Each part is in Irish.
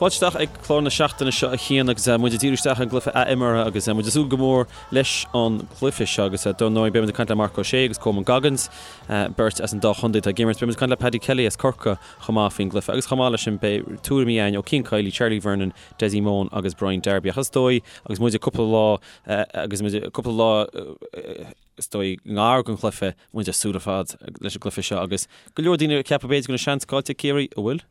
Fáilte isteach ag clár na seachtaine seo a Chian agus muid ag díriú isteach ar an gcluiche athimeartha agus muid ag súil go mór leis an gcluiche seo agus dar ndóigh beidh muid ag caint le Marc Ó Sé agus Coman Goggins, beirt as an dá chontae atá ag imirt. Beidh muid ag caint le Paddy Kelly as Corcaigh chomh maith faoin gcluiche agus chomh maith leis sin beidh tuairimí againn ó Cian Kiely, Charlie Vernon, Dessie Mone agus Brian Darby. Ach is dóigh agus muid ag cúpla lá agus muid ag cúpla lá is dóigh i ngar don chluiche, muid ag súil ar fad leis an gcluiche seo agus go leor daoine ag ceapadh b'fhéidir go bhfuil an seans caillte ag Ciarraí, an bhfuil?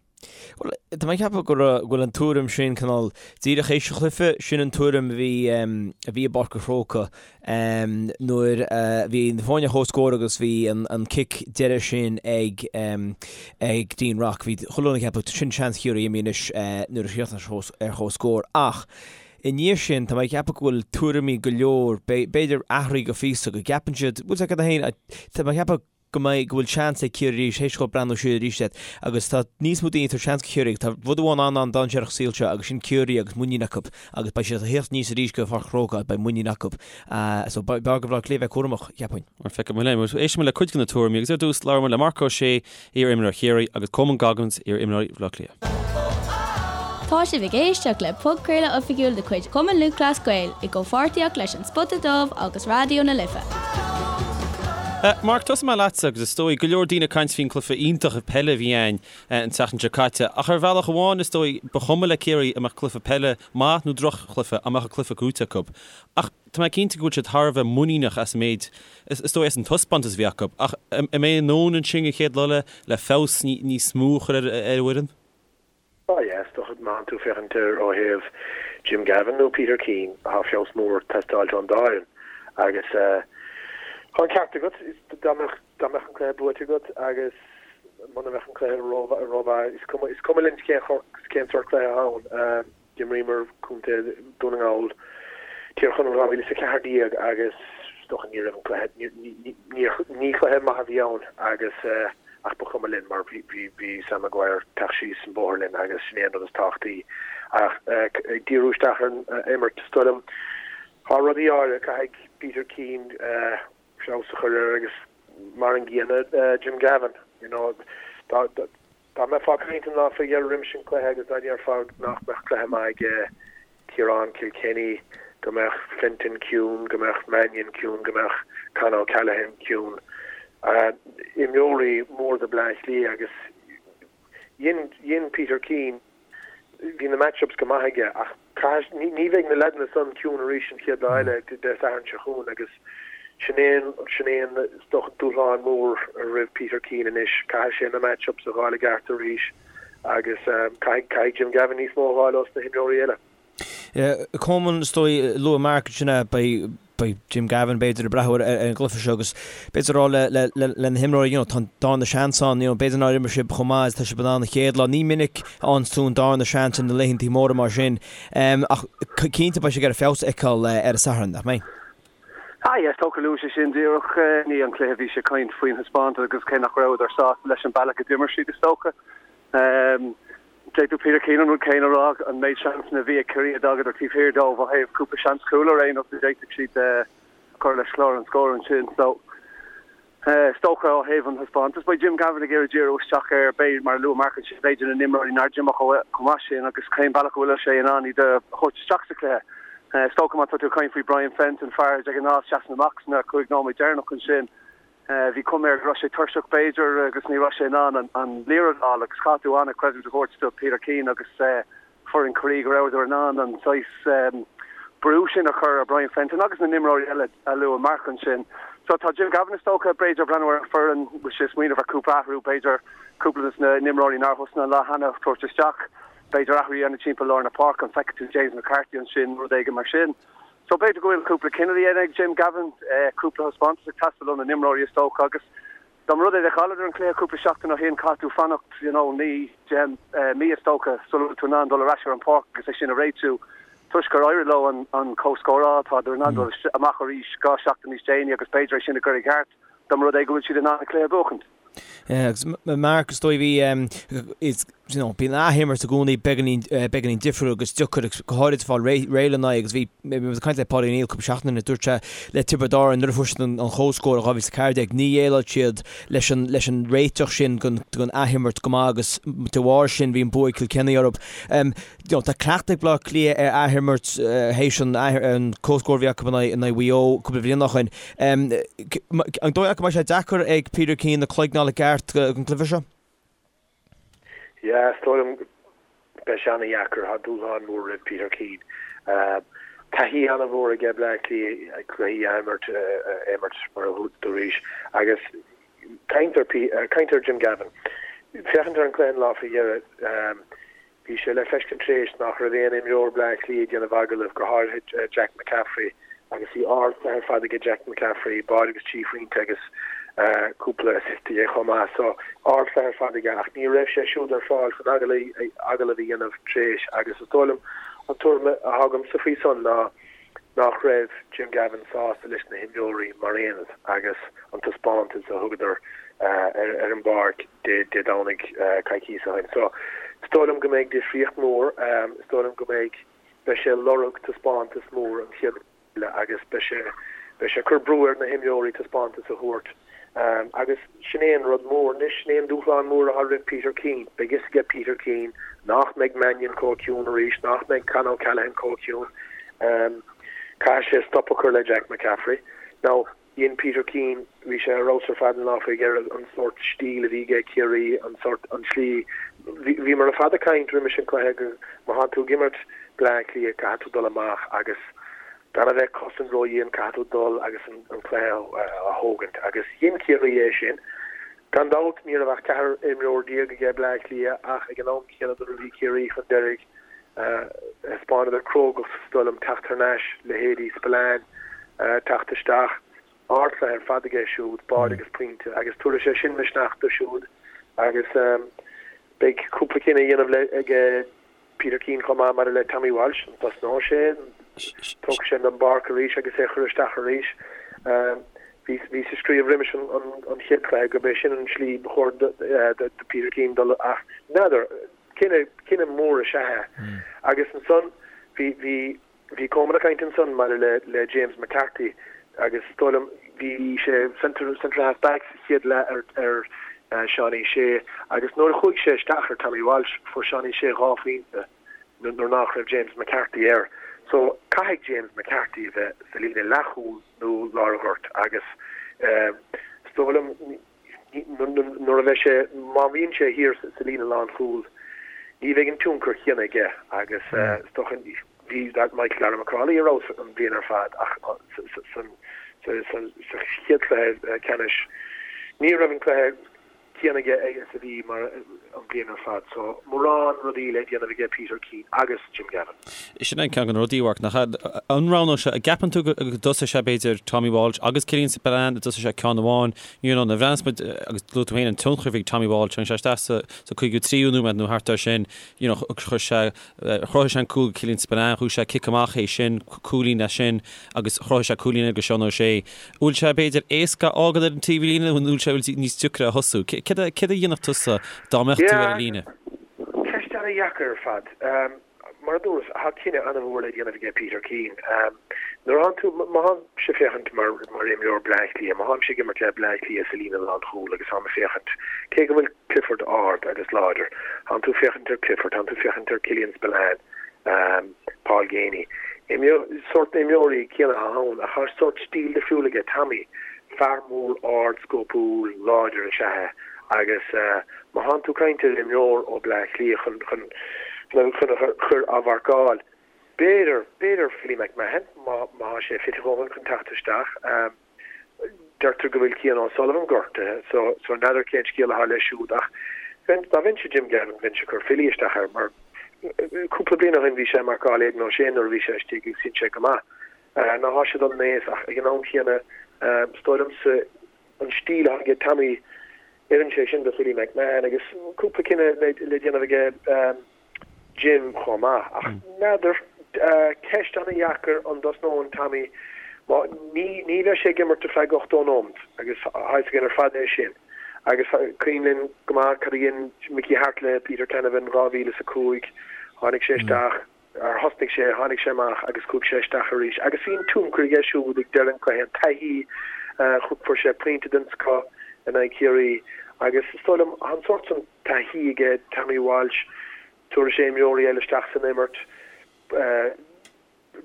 Bhuel, tá mé ag ceapadh go bhfuil an tuairim sin cineál díreach théis an chluiche, sin an tuairim a bhí a bhí i bPáirc an Chrócaigh nuair a bhí na foirne ar comhscór agus bhí an cic deiridh sin ag ag Dean Rock. Bhí chuile dhuine ag ceapadh sin seans Chiarraí imithe anois nuair a chríochnaigh sé ar comhscór ach i ndiaidh sin tá mé ag ceapadh go bhfuil tuairimí go leor, b'fhéidir athraithe go phíosa, go gceapann siad, bhfuil a fhios agat féin, tá mé ag ceapadh go mbeidh, go bhfuil seans ag Ciarraí arís, théis dóibh breathnú siar arís air agus tá níos mó daoine ag tabhairt seans do Chiarraí agus tá rud amháin an-an-dainséarach sa saol seo agus sin Ciarraí agus muinín acu agus beidh siad ag theacht aníos arís go Pháirc an Chrócaigh agus beidh muinín acu. So b'fhearr do Bhaile Átha Cliath bheith cúramach, cheapfainn. Mar feicfidh muid linn. Éistfidh muid le cuid de na tuairimí agus ar dtús labhróidh muid le Marc Ó Sé, iar-imreoir Chiarraí, agus Coman Goggins, iar-imreoir Bhaile Átha Cliath. Tá sibh ag éisteacht le podchraoladh oifigiúil de chuid Chumann Lúthchleas Gael i gcomhpháirtíocht leis An Spota Dubh agus Raidió na Life. Marc, tosóidh mé leatsa agus is dóigh go leor daoine ag caint faoin cluiche iontach peile a bhí ann an tseachtain seo caite ach ar bhealach amháin is dóigh ba chuma le Ciarraí an mbeadh cluiche peile maith nó droch-chluiche dá mbeadh an cluiche gnóthaithe acu. Ach tá mé cinnte go bhfuil siad thar a bheith muiníneach as an méid, is dóigh as an taispeántas a bhí acu. Ach an mbeidh a ndóthain ansin an chéad lá eile le feabhas níos mó a chur ar an bhfoireann? Ah yeah, is dócha má tánn tú ag féachaint air ó thaobh Jim Gavin nó Peter Keane, tá feabhas mór ag teastáilt ón dá fhoireann. Agus tá an ceart agat, dá mbeadh dá mbeadh an cluiche buaite agat agus muna mbeadh an cluiche rómhaith, is cuma is cuma linn cén cén sórt cluiche atá ann. D'imríomar Contae Dhún na nGall, Tír Chonaill 2014 agus is dócha ní raibh an cluiche, ní cluiche maith a bhí ann agus ach ba chuma linn mar bhí Sam Maguire ag teacht síos an bóthar linn agus sin é an rud is tábhachtaí. Ach ag díriú isteach ar an imirt, is dóigh liom, tá rudaí áirithe, caithfidh Peter Keane feabhas a chur air agus mar an gcéanna Jim Gavin, you know, Dá mbeifeá ag caint an lá faoi dheireadh roimis an cluiche agus dá ndéarfá nach mbeadh cluiche maith ag Ciarán Kilkenny, go mbeadh Fenton ciúin, go mbeadh Mannion ciúin, go mbeadh Con O'Callaghan ciúin, imreoirí móra do Bleá Cliath agus dhein, dhein Peter Keane, Bhí na match-ups go maith aige ach caithfidh, ní bheidh na leaideanna san ciúin arís an chéad lá eile, Dé Sathairn seo chugainn agus sin é an, sin é an, is dócha, dúshlán mór roimh Peter Keane anois. Caithfidh sé na match-ups a dh'fháil i gceart arís agus caithfidh, caithfidh Jim Gavin níos mó a dh'fháil ós na himreoirí eile. Coman, is dóigh, luaigh Mark ansin é, beidh beidh Jim Gavin b'fhéidir ag breathnú ar an gcluiche seo agus b'fhéidir rá le le na himreoirí you know tá an darna seans ann you know b'fhéidir nár imir sibh chomh maith is atá sibh in ann an chéad lá. Ní minic a fhaigheann tú an darna seans ar na laethantaí móra mar sin ach cinnte beidh sé ag iarraidh feabhas a fheiceáil ar an Satharn, nach mbeidh? Ah yes, is dócha luaigh sé sin díreach i ndiaidh an chluiche bhí sé ag caint faoin thaispeántas agus cé nach rabhadar sásta leis an bealach a d'imir siad is dócha. D'fhéadfadh Peter Keane an rud céanna a rá, an méid seansanna a bhí ag Ciarraí a d'fhágadar taobh thiar dóibh ó thaobh cúpla seans cúil ar aon nós a d'fhéadfadh siad a chur leis chlár an scóir ansin. So, is dócha ó thaobh an thaispeántais, beidh Jim Gavin ag iarraidh díriú isteach ar, b'fhéidir, mar a luaigh Mark ansin, b'fhéidir na n-imreoirí nár d'imir chomh maith sin agus cén bealach a bhfuil sé in ann iad a thabhairt isteach sa chluiche. Is dócha má tá tú ag caint faoi Brian Fenton, fear de ghnáth seasann amach sna 5 nóiméad deireanach ansin, Bhí cuma air go raibh sé tuirseach b'fhéidir agus ní raibh sé in ann an liathróid a fháil agus chaithfeadh tú an-chreidiúint a thabhairt do Peter Keane agus foireann Chiarraí go rabhadar in ann an saghas brú sin a chur ar Brian Fenton agus na n-imreoirí eile a luaigh Mark ansin. So tá Jim Gavin is dócha b'fhéidir ag breathnú ar an foireann, bhfuil sé ag smaoineamh ar cúpla athrú, b'fhéidir cúpla de na n-imreoirí nár thosnaigh an lá cheana a thabhairt isteach, b'fhéidir athrú a dhéanamh timpeall lár na páirce, an bhfeicfidh tú James McCarthy ansin, rud éigin mar sin. So b'fhéidir go bhfuil cúpla cinneadh le déanamh ag Jim Gavin, cúpla thaispeántas ag teastáil ó na n-imreoirí is dócha agus dá mba rud é do chailleadar an cluiche cúpla seachtain ó shin caithfidh tú fanacht you know 9, 10 mí is dócha sula bhfuil tú in ann dul ar ais ar an pháirc agus é sin a réitiú. Toisc gur éirigh leo an an comhscór a fháil tádar in ann dul amach arís 2 seachtain níos déanaí agus b'fhéidir é sin a chur i gceart dá mba rud é go bhfuil siad in ann an cluiche a bhuachaint. Agus Mark, is dóigh bhí, is, you know, bíonn athimirt i gcónaí beagáinín, beagáinín difriúil agus deacair agus go háirid fáil réidh lena aghaidh agus bhí, bhí muid ag caint le Paudie O'Neill cúpla seachtain ó shin, dúirt sé le Tiobraid Árann nuair a fuair siad an comhscór i 2014, ní dhéileáil siad leis an, leis an réiteach sin den, den athimirt go maith agus de bharr sin bhí an bua ag Cill Chainnigh orthu. You know, tá cleachtadh ag Bleá Cliath ar athimirt théis an, an comhscór a bhí acu in aghaidh, in aghaidh Mhaigh Eo cúpla bliain ó shin. An dóigh leat go mbeidh sé deacair ag Peter Keane a chloigeann a fháil i gceart don chluiche seo? Yeah, is dóigh liom beidh sé ana-dheacair. Tá dúshlán mór roimh Peter Keane. Taithí ana-mhór aige Bleá Cliath cluichí a imirt, a imirt mar a dúraís agus caint ar, caint ar Jim Gavin. Féachaint ar an cluiche an lá faoi dheireadh, Bhí sé le feiscint tréis nach raibh aon imreoir Bleá Cliath ag déanamh agallaimh, go háirithe Jack McCaffrey, agus bhí ardchluiche ar fad aige Jack McCaffrey, báide agus trí phointe agus cúpla assist aige chomh maith. So, ardchluiche ar fad aige ach ní raibh sé siúd ar fáil chun agallamh a dhéanamh tréis agus is dóigh liom an tuairim atá agamsa faoi san ná nach raibh Jim Gavin sásta leis na himreoirí mar aonad agus an taispeántas a thugadar ar an bpáirc Dé Domhnaigh coicíos ó shin. So, is dóigh liom go mbeidh difríocht mhór, is dóigh liom go mbeidh, beidh sé ag lorg taispeántas mór an chéad eile agus beidh sé, beidh sé ag cur brú ar na himreoirí taispeántas a thabhairt. Agus sin é an rud mór anois, sin é an dúshlán mór atá roimh Peter Keane. Beidh fhios aige Peter Keane nach mbeidh Mannion chomh ciúin arís, nach mbeidh Con O'Callaghan chomh ciúin. Caithfidh sé stop a chur le Jack McCaffrey. Now, dhein Peter Keane, bhí sé ar fheabhas ar fad an lá faoi dheireadh, an sórt stíl a bhí aige Ciarraí, an sórt, an tslí, bhíomar ar fad ag caint roimis an cluiche go má thánn tú ag imirt Bleá Cliath caithfidh tú dul amach agus Gan a bheith ag cosaint ródhian, caithfidh tú dul agus an cluiche a thógaint. Agus dhein Ciarraí é sin. Gan dabht, ní raibh ach 14 imreoir aige Bleá Cliath ach ag an am céanna nuair a bhí Ciarraí chun deiridh, thaispeánadar crógacht, is dóigh liom, teacht thar n-ais, leithéidí Spillane teacht isteach. Ardchluiche ar fad aige siúd, báide agus pointe, agus tabharfaidh sé sin misneach dó siúd agus beidh cúpla cinneadh a dhéanamh aige Peter Keane chomh maith maidir le Tommy Walsh, an dtosnóidh sé, an dtógfaidh sé den bpáirc arís agus é a chur isteach arís. Bhíos ag scríobh roimis an chéad chluiche gurb é sin an tslí ba chóir do Peter Keane dul ach n'fheadar, cinneadh mór is ea é. Agus ansan bhí, bhí, Bhí Coman ag caint ansan maidir le le James McCarthy agus is dóigh liom bhí sé centre centre half back sa chéad leath ar ar Seánie Shea agus nuair a chuaigh sé isteach ar Tommy Walsh fuair Seánie Shea 2 phointe nuair nach raibh James McCarthy air. So caithfidh James McCarthy a bheith sa líne leathchúil nó lár an ghoirt agus is dóigh liom Nuair a bheidh sé, má bhíonn sé thiar sa líne lánchúil, ní bheidh an tionchar chéanna aige agus is dócha, bhí Michael Darragh MacAuley ar fheabhas an bhliain ar fad ach sa chéad chluiche ceannais ní raibh an cluiche céanna aige is a bhí mar an bhliain ar fad. So mórán rudaí le déanamh aige Peter Keane agus Jim Gavin. Sin é ceann de na rudaí, a Mharc, nach ea? An roghnóidh sé, an gceapann tú go dtosóidh sé b'fhéidir Tommy Walsh agus Killian Spillane, an dtosóidh sé ceann amháin, you know, nuair a bhreathnaíos muid, agus luaigh tú féin an tionchar a bhí ag Tommy Walsh, tháinig sé isteach sa sa 53ú nóiméad nó thart air sin, you know, chuir sé, chruthaigh sé an cúl go Killian Spillane, chuaigh sé cic amach é sin, cúilín as sin agus chruthaigh sé cúilín eile go Seán O'Shea. Bhfuil sé b'fhéidir éasca a fhágáil ar an taobhlíne nó bhfuil sé níos deacra a thosú? Céard a dhéanfadh tusa dá mbeadh tú ar an líne? Ceist ana-dheacair ar fad. Mar a dúras, tá cinneadh ana-mhór le déanamh aige Peter Keane. Nuair a thánn tú, má tháimse ag féachaint mar mar imreoir Bleá Cliath, má tháimse ag imirt le Bleá Cliath sa líne lánchúil agus táim ag féachaint, cé go bhfuil Clifford ard agus láidir, tánn tú ag féachaint ar Clifford, tánn tú ag féachaint ar Killian Spillane, Paul Geaney. Imreoir, sórt na imreoirí céanna atá ann ach tá sórt stíl difriúil aige Tommy, fear mór ard scópúil láidir is ea é. Agus má thánn tú ag caint ar imreoir ó Bleá Cliath chun chun chun a chur á mharcáil, b'fhéidir, b'fhéidir Philly McMahon, má má thá sé fit a dhóthain chun teacht isteach. Deirtear go bhfuil Cian O'Sullivan gortaithe so so n'fheadar cén scéal athá leis siúd ach bheinn, dá mbeinnse Jim Gavin bheinnse ag cur Philly isteach air mar cúpla bliain ó shin bhí sé ag marcáil Aidan O'Shea nuair a bhí sé istigh agus dhein sé go maith. Now thá sé dul in aois ach ag an am chéanna is dóigh liomsa an stíl atá aige Tommy, oireann sé sin do Philly McMahon agus cúpla cinneadh le déanamh aige Jim chomh maith. Ach n'fheadar, ceist ana-dheacair an dtosnóinn Tommy, má, ní, ní bheidh sé ag imirt ar feadh 80 nóimeat agus tá a fhios againn ar fad é sin. Agus cuimhin linn go maith cad a dhein Mickey Harte le Peter Canavan 2005, tháinig sé isteach, ar thosnaigh sé, tháinig sé amach agus chuaigh sé isteach arís. Agus bhí an tionchar aige siúd ag deireadh an chluiche, an taithí, fuair sé pointe den scoth in aghaidh Chiarraí. Agus is dóigh liom, tá an sórt san taithí aige Tommy Walsh, tabharfaidh sé imreoirí eile isteach san imirt,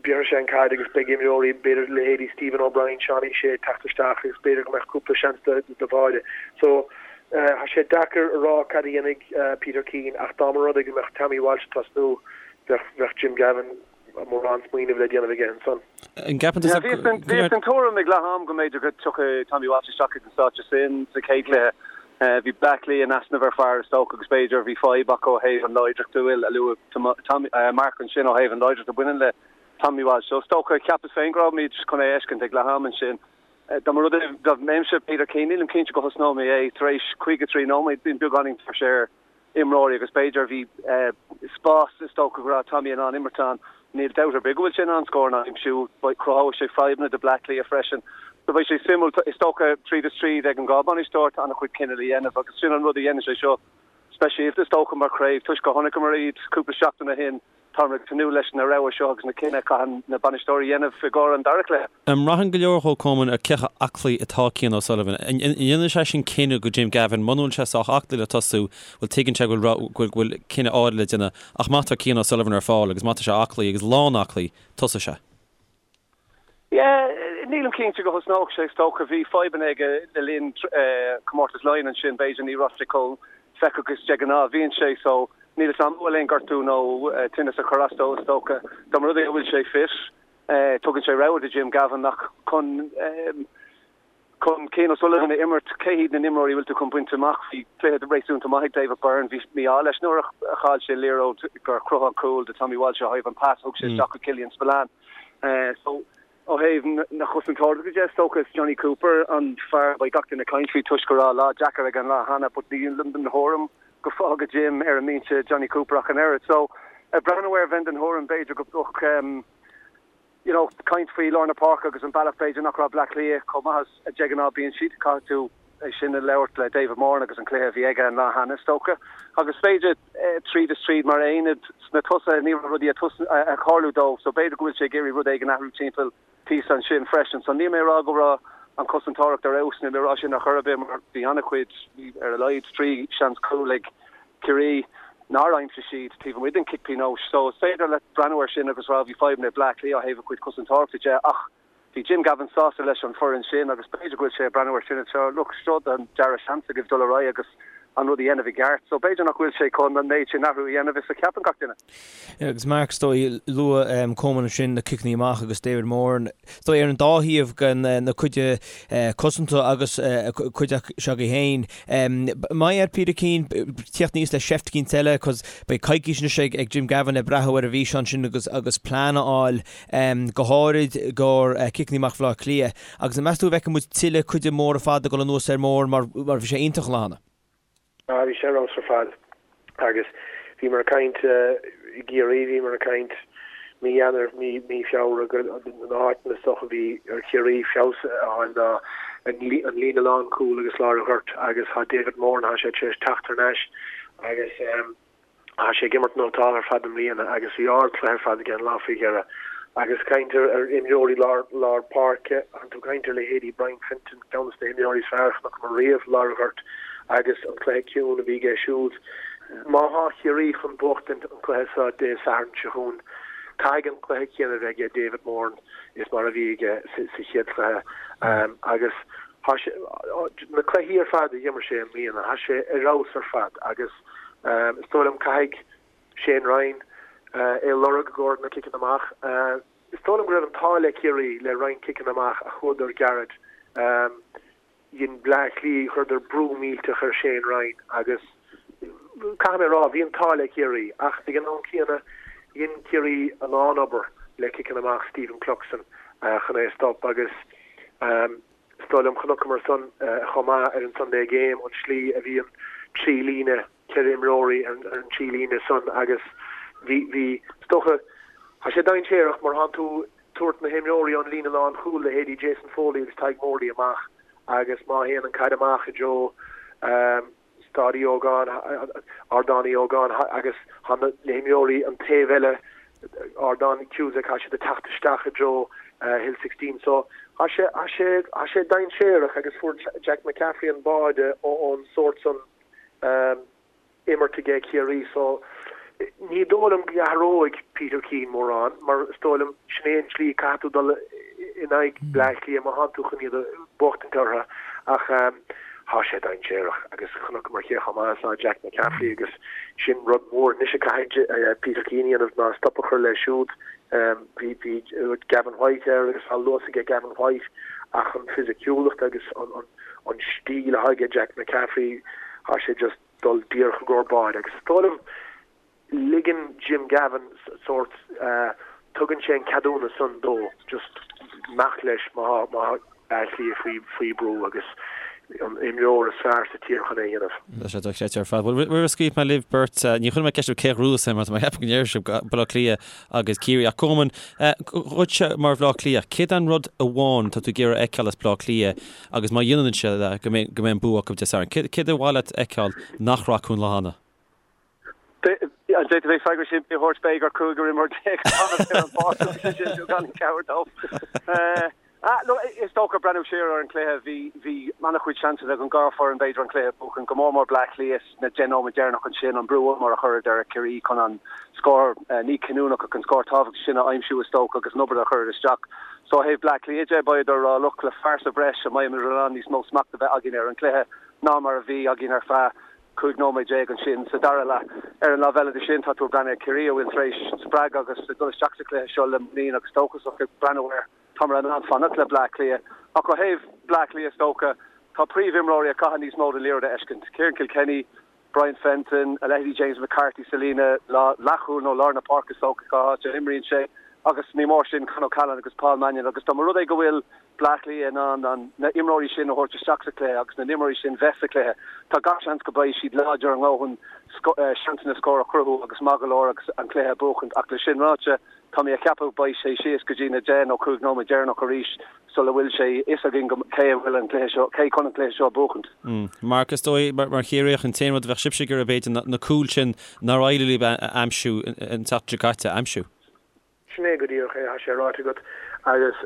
Bhéarfaidh sé an caid agus beidh imreoirí, b'fhéidir leithéidí Stephen O'Brien, Seánie Shea ag teacht isteach agus b'fhéidir go mbeadh cúpla seans do Mháire. So, tá sé deacair a rá cad a dhéanfaidh Peter Keane ach dá mba rud é go mbeadh Tommy Walsh ag tosnú, bheadh Jim Gavin mórán smaoineamh le déanamh aige ansan. An gceapann tusa go. Bhíos den tuairim ag leath am go mb'fhéidir go dtiocfadh Tommy Walsh isteach ag an stáitse sin sa chéad chluiche. Bhí Bleá Cliath in easnamh ar fear is dócha agus b'fhéidir bhí fadhb acu ó thaobh an láidreacht a bhfuil a luaigh Mark ansin ó thaobh an láidreacht a bhaineann le Tommy Walsh. So is dócha, cheapas féin go raibh muid chun é a fheiscint ag leath am ansin. Dá mba rud é dá mbeinnse Peter Keane, nílim cinnte go thosnódh mé é tar éis 53 nóiméad, bíonn beagáinín tuirse ar imreoirí agus b'fhéidir bhí spás is dócha go raibh Tommy in ann imirt ann. Níl dabht ar bith go bhfuil sé in ann scóranna a aimsiú. Cruthóidh sé fadhbanna do Bleá Cliath freisin. So beidh sé suimiúil. Is dócha tríd is tríd ag an dhá bhainisteoir tá an-chuid cinneadh le dhéanamh agus sin an rud a dhéanann sé seo speisialta is dócha mar chraobh toisc gur chonaiceamar iad cúpla seachtain ó shin. Táim ag tnúth leis na rogha seo agus na cinneadh a chaitheann na bainisteoirí a dhéanamh i gcomhair an dara cluiche. An mbraitheann go leor dhó Coman ar cé chomh aclaí atá Cian O'Sullivan? An ndéanann sé sin cinneadh go Jim Gavin muna bhfuil sé sách aclaí le tosú, bhuel tuigeann sé go bhfuil cinneadh áirithe le déanamh ach má tá Cian O'Sullivan ar fáil agus má tá sé aclaí agus lán aclaí, tosóidh sé. Yeah, nílim cinnte go thosnódh sé, is dócha. Bhí fadhbanna aige le linn Comórtas Laighean ansin, b'fhéidir ní raibh sé chomh feictheach is de ghnáth a bhíonn sé, so níl 'fhios a'm an bhfuil aon gortú nó tinneas a chuir as dó, is dócha. Dá mba rud é go bhfuil sé fit, tugann sé rogha do Jim Gavin ach chun Chun Cian O'Sullivan a imirt, cé hiad na n-imreoirí a bhfuil tú chun baint amach? Bhí cluiche réasúnta maith ag David Byrne. Bhí mí-ádh leis nuair a chaill sé an liathróid gur chruthaigh an cúl do Tommy Walsh ó thaobh an pas a thug sé isteach go Killian Spillane. So, ó thaobh na chosantóireachta de, is dócha is Jonny Cooper an fear a bheidh gach duine ag caint faoi toisc go raibh lá deacair aige an lá cheana but nílim den thuairim go bhfágfadh Jim ar an mbinse Jonny Cooper ach an oiread. So, ag breathnú air bheinn den thuairim b'fhéidir go mbeadh you know, caint faoi lár na páirce agus an bealach b'fhéidir nach raibh Bleá Cliath chomh maith is a de ghnáth bíonn siad. Caithfidh tú é sin a labhairt le David Moran agus an cluiche a bhí aige an lá cheana is dócha. Agus b'fhéidir tríd is tríd mar aonad sna tosaithe ní raibh rudaí ag tarlú dóibh so b'fhéidir go bhfuil sé ag iarraidh rud éigin athrú timpeall píosa ansin freisin. So níl mé ag rá go raibh an chosantóireacht ar fheabhas, níl mé ag rá sin ar chor ar bith mar bhí an-chuid, bhí ar a laghad 3 seans cúil ag Ciarraí nár aimsigh siad taobh amuigh den chic pionóis. So is féidir leat breathnú air sin agus rá bhí fadhbanna ag Bleá Cliath ó thaobh a chuid cosantóireachta de ach bhí Jim Gavin sásta leis an foireann sin agus b'fhéidir go bhfuil sé ag breathnú air sin anseo, look, seo an dara seans agaibh dul ar aghaidh agus an rud a dhéanamh i gceart. So b'fhéidir nach bhfuil sé chun an méid sin athrú a dhéanamh is a cheapann gach duine. Agus Mark, is dóigh, luaigh Coman ansin na ciceanna amach agus David Moran, is dóigh ar an dá thaobh den na cuid cosanta agus cuid s'agaibh féin. Mbeidh ar Peter Keane tíocht aníos le seift eicínt eile cos beidh coicís anois ag Jim Gavin le breathnú ar an bhfíseán sin agus agus plean a fháil go háirid i gcomhair ciceanna amach Bhaile Átha Cliath. Agus an meas tú an bhfeicfidh muid tuilleadh cuid móra fada ag dul anuas ar Moran mar mar bhí sé iontach an lá cheana? Ah bhí sé ar fheabhas ar fad agus bhíomar ag caint i gCiarraí, bhíomar ag caint mí Eanáir, mí mí Feabhra go na háiteanna is dócha a bhí ar Chiarraí feabhas a fháil ná an líne lánchúil agus lár an ghoirt agus tá David Moran, tá sé tar éis teacht thar n-ais agus tá sé ag imirt nótálta ar fad i mbliana agus bhí ardchluiche ar fad aige an lá faoi dheireadh. Agus caint ar ar imreoirí lár lár páirce, tá tú ag caint ar leithéidí Brian Fenton, ceann de na himreoirí is fearr a chonaiceamar riamh lár an ghoirt agus an cluiche ciúin a bhí aige siúd. Má thá Ciarraí chun buachtaint an cluiche seo Dé Sathairn seo chugainn, caithfidh an cluiche céanna a bheith aige David Moran is mar a bhí aige sa chéad chluiche. Agus thá sé, na cluichí ar fad a d'imir sé i mbliana, thá sé ar fheabhas ar fad agus is dóigh liom caithfidh Shane Ryan é a lorg i gcomhair na ciceanna amach. Is dóigh liom go raibh an t-ádh le Ciarraí le roinnt ciceanna amach a chuadar gairid. Dhein Bleá Cliath, chuireadar brú millteach ar Shane Ryan agus caithfidh mé a rá, bhí an t-ádh le Ciarraí ach ag an am céanna dhein Ciarraí a lán obair le ciceanna amach Stephen Cluxton chun é a stop agus is dóigh liom chonaiceamar san chomh maith ar an Sunday Game an slí a bhí an trí líne 4 imreoirí ar an trí líne san agus bhí, bhí, is dócha, tá sé dainséarach mar thánn tú tabhairt na himreoirí ón líne lán chúil leithéidí Jason Foley agus Tadhg Morley amach agus má théann an caid amach i dtreo Staid Uí Ógáin, Ardán Uí Ógáin agus tá na himreoirí an taobh eile Ardán Cusack, tá siad ag teacht isteach i dtreo Hill 16. So tá sé, tá sé, tá sé dainséarach agus fuair Jack McCaffrey an báide ón sórt san imirt aige Ciarraí. So ní dóigh liom go athróidh Peter Keane mórán mar is dóigh liom sin é an tslí caithfidh tú dul in aghaidh Bleá Cliath má thánn tú chun iad a bhuachtaint orthu ach Thá sé dainséarach agus chonaiceamar cé chomh maith is atá Jack McCaffrey agus sin rud mór anois a caithfidh Peter Keane a dhéanamh ná stop a chur leis siúd. Bhí bhí Gavin White air agus tá luas aige Gavin White ach an fisiciúlacht agus an an stíl atá aige Jack McCaffrey thá sé just dul díreach i gcomhair báide agus is dóigh liom ligeann Jim Gavin sórt, tugann sé an ceadúnas san dó just imeacht leis má tá Bleá Cliath faoi faoi brú agus an imreoir is fearr sa tír chun é a dhéanamh. Tá sé dochreidte ar fad. Bhuel, roimh a scaoilfidh mé libh beirt, ní chuirfidh mé ceist oraibh cé a ghnóthós é mar tá mé ag ceapadh go ndéarfaidh sibh Baile Átha Cliath agus Ciarraí. Ach Coman, dhuitse mar Bhaile Átha Cliath, céard é an rud amháin atá tú ag iarraidh a fheiceáil as Baile Átha Cliath agus má dhéanann siad é go mbeidh an bua acu Dé Sathairn? Céard ar mhaith leat a fheiceáil nach raibh acu an lá cheana? An bhféadfaidh mé freagra simplí a thabhairt? Beidh ar chúigear imreoir fanacht ar an bpáirc agus é sin gan cabhair dóibh. Is dócha breathnú siar ar an chluiche, bhí bhí an-chuid seansanna ag an dhá foireann b'fhéidir an cluiche a bhuachan, go mór mór Bleá Cliath sna deich nóiméad deireanach ansin, an brú ollmhór a chuireadar ar Chiarraí chun an scór, ní cinniúnach ach an scór tábhachtach sin a aimsiú is dócha agus an obair a chuireadar isteach. So ó thaobh Bleá Cliath de, beidh ar a look le fear sa bhreis an mbeidh muid in ann níos mó smacht a bheith againn ar an chluiche ná mar a bhí againn ar feadh 15 nóiméad ansin sa dara leath. Ar an lámh eile de sin, tá tú ag breathnú ar Chiarraí a bhfuil tar éis spreagadh agus ag dul isteach sa chluiche seo le muinín agus dóchasach ag breathnú air. Táimid in ann fanacht le Bleá Cliath. Ach ó thaobh Bleá Cliath is dócha, tá príomhimreoirí a chaithfidh níos mó den liathróid a fheiscint. Ciarán Kilkenny, Brian Fenton, a leithéidí James McCarthy sa líne leathchúil nó lár na páirce is dócha cá háit a n-imríonn sé. Agus ní mór sin Con O'Callaghan agus Paul Mannion agus dá mba rud é go bhfuil Bleá Cliath in ann an na imreoirí sin a thabhairt isteach sa chluiche agus na n-imreoirí sin bheith sa chluiche, tá gach seans go mbeidh siad láidir a ndóthain seansanna scóir a chruthú agus maith go leor agus an cluiche a bhuachaint. Ach le sin ráite, tá mé a cheapadh beidh sé síos go dtí na 10 nó 15 nóiméad deireanach arís sula bhfuil sé fhios againn go cé a bhfuil an cluiche seo, cé chun an cluiche seo a bhuachaint. Mark, is dóigh, mar Chiarraíoch, an t-aon rud a bheadh sibhse ag iarraidh b'fhéidir na cúil sin nár éirigh libh a aimsiú an tseachtain seo caite a aimsiú. Sin é go díreach é, tá sé ráite agat agus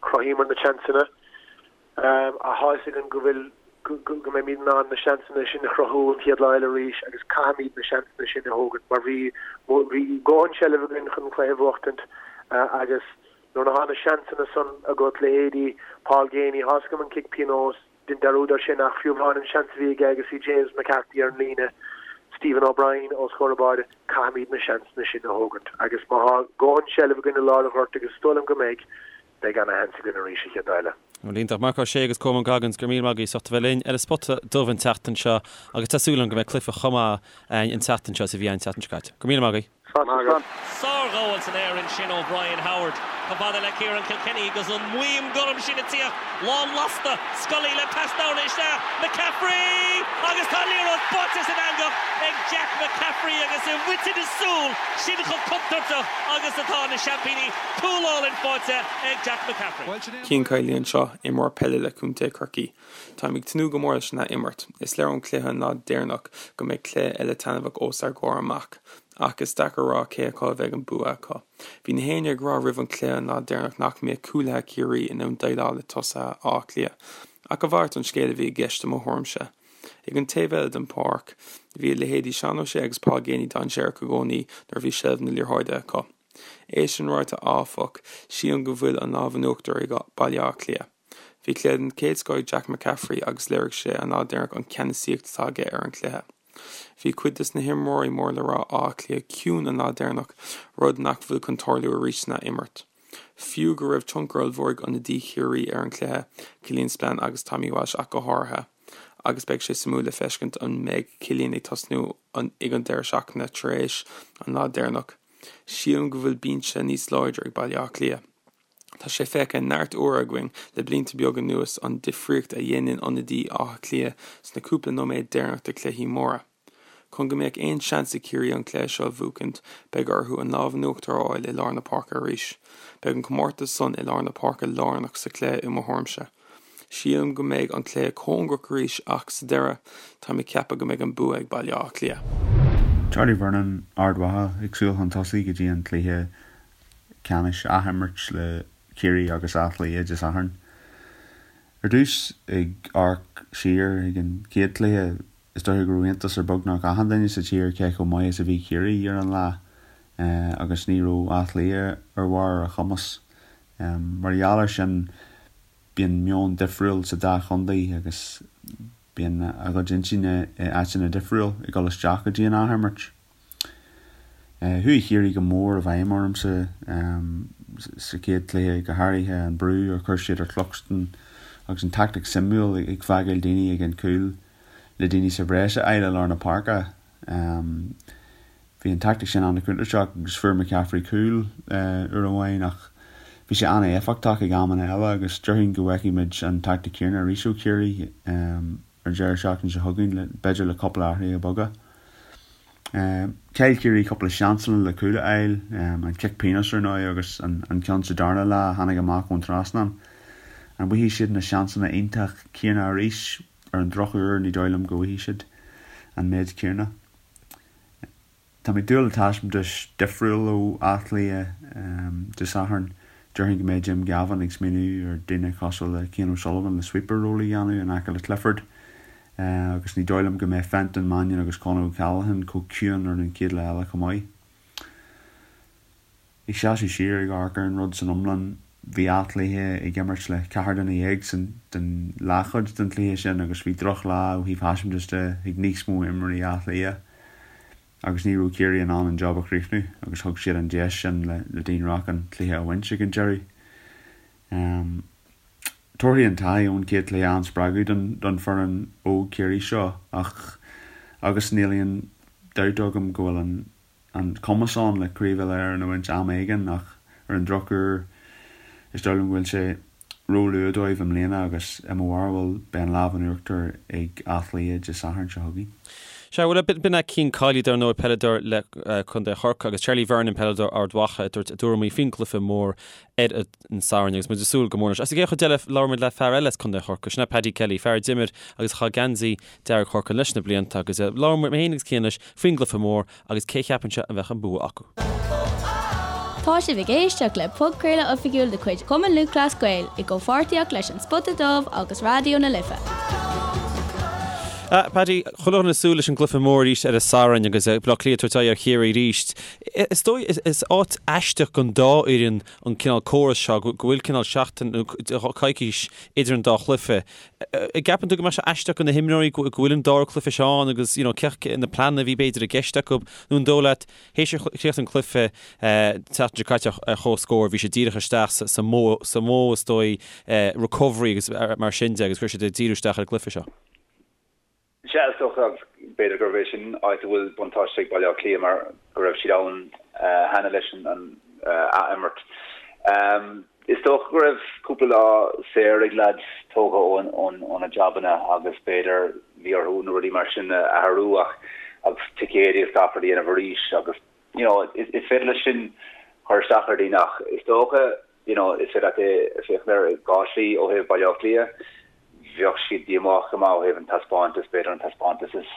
chruthaíomar na seansanna. Tá a fhios againn go bhfuil, go mbeimid in ann na seansanna sin a chruthú an chéad lá eile arís agus caithfimid na seansanna sin a thógaint mar bhí, bhí dóthain seilbh againn chun an cluiche a bhuachtaint agus nuair atá na seansanna san agat, leithéidí Paul Geaney, tá a fhios agam an cic pionóis, Dein dearúd air sin ach fiú amháin an seans a bhí aige agus bhí James McCarthy ar an líne, Stephen O'Brien os comhair an bháide, caithfimid na seansanna sin a thógaint agus má thá dóthain seilbh againn i lár an ghoirt agus is dóigh liom go mbeidh, beidh ana-sheans againn arís an chéad lá eile. Bhuel, iontach. Marc Ó Sé agus Colmán Goggins, go raibh míle maith agaibh as ucht a bheith linn ar an Spota Dubh an tseachtain seo agus tá súil agam go mbeidh cluiche chomh maith againn an tseachtain seo is a bhí an tseachtain seo caite. Go raibh míle maith agaibh. Sárghabháil san aer ansin ó Brian Howard. Chomh fada le Ciarán Kilkenny agus an maidhm gorm sin ag tíocht. Lán lasta. Scully le pas dorna isteach. McCaffrey! Agus tá an liathróid báite san eangach ag Jack McCaffrey agus i bhfaiteadh na súl, sin chomh contúirteach agus atá na seaimpíní. Cúl álainn faighte ag Jack McCaffrey. Cian Kiely anseo, imreoir peile le Contae Chorcaí. Táim ag tnúth go mór leis an ath-imirt. Is léir ón cluiche an lá deireanach go mbeidh cluiche eile taitneamhach os ár gcomhair amach. Ach is deacair a rá cé acu a bheidh an bua acu. Bhí na héinne ag rá roimh an cluiche an lá deireanach nach mbeadh cúlaithe Chiarraí in ann déileáil le tosaithe Átha Cliath. Ach a mhalairt den scéal a bhí i gceist i mo thuairimse. Ag an taobh eile den pháirc, bhí a leithéidí Seán O'Shea agus Paul Geaney dainséarach i gcónaí nuair a bhí seilbh na liathróide acu. É sin ráite áfach, sílim go bhfuil an lámh in uachtar ag Baile Átha Cliath. Bhí cluiche den chéad scoth ag Jack McCaffrey agus léirigh sé an lá deireanach an ceannasaíocht atá aige ar an chluiche. Bhí cuid des na himreoirí mór le rá Átha Cliath ciúin an lá deireanach, rud nach bhfuil chun tarlú arís san ath-imirt. Fiú go raibh tionchar ollmhór ag ionadaí Chiarraí ar an chluiche, Killian Spillane agus Tommy Walsh ach go háirithe, agus beidh sé suimiúil le feiscint an mbeidh Killian ag tosnú ag an deireadh seachtaine tar éis an lá deireanach. Sílim go bhfuil binse níos láidre ag Baile Átha Cliath. Tá sé feicthe neart uaire againn le blianta beaga anuas an difríocht a dhéanann ionadaí Átha Cliath sna cúpla nóiméad deireanach de chluichí móra. Chun go mbeadh aon seans ag Ciarraí an cluiche seo a bhuachaint, beidh orthu an lámh in uachtar a fháil i lár na páirce arís. Beidh an comórtas san i lár na páirce lárnach sa chluiche i mo thuairimse. Sílim go mbeidh an cluiche cóngarach arís ach sa deireadh, táim ag ceapadh go mbeidh an bua ag Baile Átha Cliath. Charlie Vernon, Ard Mhacha, ag súil chun tosaigh go dtí an cluiche ceannais athimirt le Ciarraí agus Áth Cliath Dé Sathairn. Ar dtús, ag amharc siar ag an chéad chluiche, is dóiche go raibh iontas ar beagnach achan duine sa tír cé chomh maith is a bhí Ciarraí ar an lá agus ní raibh Áth Cliath ar bharr a chumas. Mar gheall air sin, bíonn meon difriúil sa dá chontae agus bíonn a gcuid intinne i áiteanna difriúil ag dul isteach go dtí an athimirt. Chuaigh Ciarraí go mór i bhfeidhm ormsa sa chéad chluiche, go háirithe an brú a chuir siad ar Chluxton agus an tactic suimiúil ag fágáil daoine ag an gcúl le daoine sa bhreis a fháil i lár na páirce. Bhí an tactic sin an-chontúirteach agus fuair McCaffrey cúl uair amháin ach bhí sé an-éifeachtach ag amanna eile agus déarfainn go bhfeicfidh muid an tactic céanna arís ó Chiarraí ar an deireadh seachtaine seo chugainn, b'fhéidir le cúpla athruithe beaga. Chaill Ciarraí cúpla seansanna le cúl a fháil, an cic pionóis ar ndóigh agus an ceann sa darna leath a tháinig amach ón trasnán. An bhfaighidh siad na seansanna iontach céanna arís? Ar an drochuair ní dóigh liom go bhfaighidh siad an méid céanna. Tá mé ag dúil le taispeántas difriúil ó Áth Cliath Dé Sathairn. Déarfainn go mbeidh Jim Gavin ag smaoineamh ar daoine cosúil le Cian O'Sullivan le sweeper role a dhéanamh in aice le Clifford agus ní dóigh liom go mbeidh Fenton, Mannion agus Conor O'Callaghan chomh ciúin ar an chéad lá eile chomh maith. Ag seasamh siar ag amharc ar an rud san iomlán, bhí Áth Cliath ag imirt le ceathrar duine dhéag san den leathchuid den chluiche sin agus bhí drochlá ó thaobh thaispeántas de ag níos mó imreoirí Átha Cliath agus ní raibh Ciarraí in ann an job a chríochnú agus thug siad an deis sin le Dean Rock an cluiche a bhaint ag an deireadh. Tabharfaidh an taithí ón chéad chluiche an-spreagadh don foireann óg Chiarraí seo ach agus níl aon dabht agam go bhfuil an an cumas ann le Craobh Uile-Éireann a bhaint am éigin ach ar an drochuair is dóigh liom go bhfuil sé ró-luath dóibh i mbliana agus i mo bharúil beidh an lámh in uachtar ag Áth Cliath Dé Sathairn seo chugainn. Sea, bhuel, b'in é Cian Kiely, dar ndóigh, peileadóir le Contae Chorcaí, agus Charlie Vernon, peileadóir Ard Mhacha, ag tabhairt a dtuairimí faoin gcluiche mór ar an Satharn agus muid ag súil go mór leis. As an gcéad chuid eile, labhair muid le fear eile as Contae Chorcaí, sin é Paddy Kelly, fear a d'imir agus a chaith geansaí dearg Chorcaí leis na blianta agus labhair mé féin agus Cian leis faoin gcluiche mór agus cé cheapann sé a bheadh an bua acu. Tá sibh ag éisteacht le podchraoladh oifigiúil de chuid Chumann Lúthchleas Gael i gcomhpháirtíocht leis An Spota Dubh agus Raidió na Life. Paddy, chuile dhuine ag súil leis an gcluiche mór arís ar an Satharn agus Baile Átha Cliath ag tabhairt aghaidh ar Chiarraí arís. Is dóigh, is áit aisteach don dá fhoireann an cineál córas seo, go bhfuil cineál seachtain nó coicís idir an dá chluiche. An gceapann tú go mbeadh sé aisteach do na himreoirí go bhfuil an dara cluiche seo ann agus you know cé na pleananna a bhí b'fhéidir i gceist acu nó an dóigh leat théis chríoch an cluiche tseachtain seo caite ar comhscór bhí sé díreach isteach sa modh sa modh is dóigh recovery agus mar sin de agus go raibh siad ag díriú isteach ar an gcluiche seo. Sea, is dócha, agus b'fhéidir gurb é sin áit a bhfuil buntáiste ag Baile Átha Cliath mar go raibh siad ann cheana leis an ath-imirt. Is dócha go raibh cúpla lá saor ag leaids tógtha óna jabanna agus b'fhéidir bhí orthu na rudaí mar sin a athrú ach agus ticéid agus gach rud a dhéanamh arís agus you know is féidir leis sin cur isteach ar dhaoine ach is dócha you know, is féidir leat é féachaint air i dhá shlí ó thaobh Baile Átha Cliath. Bheadh siad díomách go maith ó thaobh an taispeántas, b'fhéidir an taispeántas is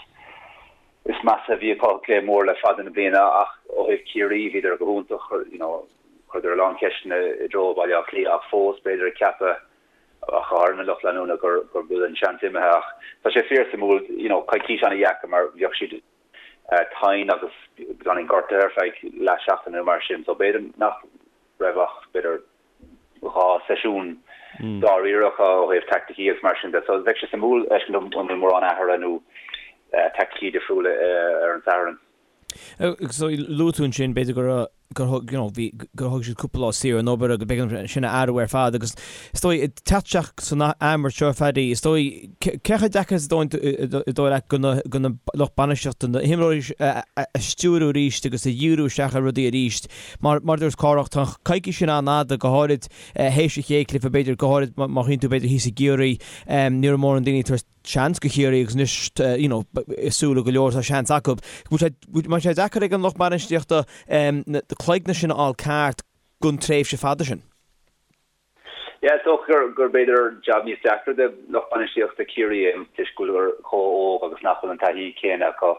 is measa a bhí acu i gcluiche mór le fada na bliana ach ó thaobh Ciarraí bhíodar go hiontach, you know, chuireadar a lán ceisteanna i dtreo Baile Átha Cliath ach fós b'fhéidir ag ceapadh ach go háirithe na lucht leanúna gur gur bhfuil an seans imithe ach tá sé fíor suimiúil, you know, coicís ana-dheacair mar bheadh siad tinn agus beagáinín gortaithe ar feadh leath seachtaine nó mar sin so b'fhéidir nach raibh ach b'fhéidir 2 seisiún dáiríre acu ó thaobh teaicticí agus mar sin de. So bheadh sé suimiúil fheiscint an bhfuil mórán athruithe nó teaicticí difriúla ar an Satharn. So luaigh tú ansin b'fhéidir go raibh gur thug you know bhí gur thug siad cúpla lá saor ón obair agus b'fhéidir sin a athrú ar fad agus is dóigh ag teacht isteach san athimirt seo Phaddy is dóigh cé chomh deacair is dóigh leat do na do na lucht bainistíochta na himreoirí a stiúrú arís agus a dhíriú isteach ar rudaí arís Mar mar a dúirt Cárthach, tá an coicís sin an-fhada, go háirid théis an chéad chluiche, b'fhéidir, go háirid má shuíonn tú b'fhéidir thíos i gCiarraí, ní raibh mórán daoine ag tabhairt seans do Chiarraí agus anois you know i súile go leor tá seans acu. Bhfuil sé mbeidh sé deacair ag an lucht bainistíochta na cloigne sin a fháil ceart don tréimhse fada sin? Yeah, is dócha gur gur b'fhéidir jab níos deacra do lucht bainistíochta Chiarraí é toisc go bhfuil chomh óg agus nach bhfuil an taithí céanna acu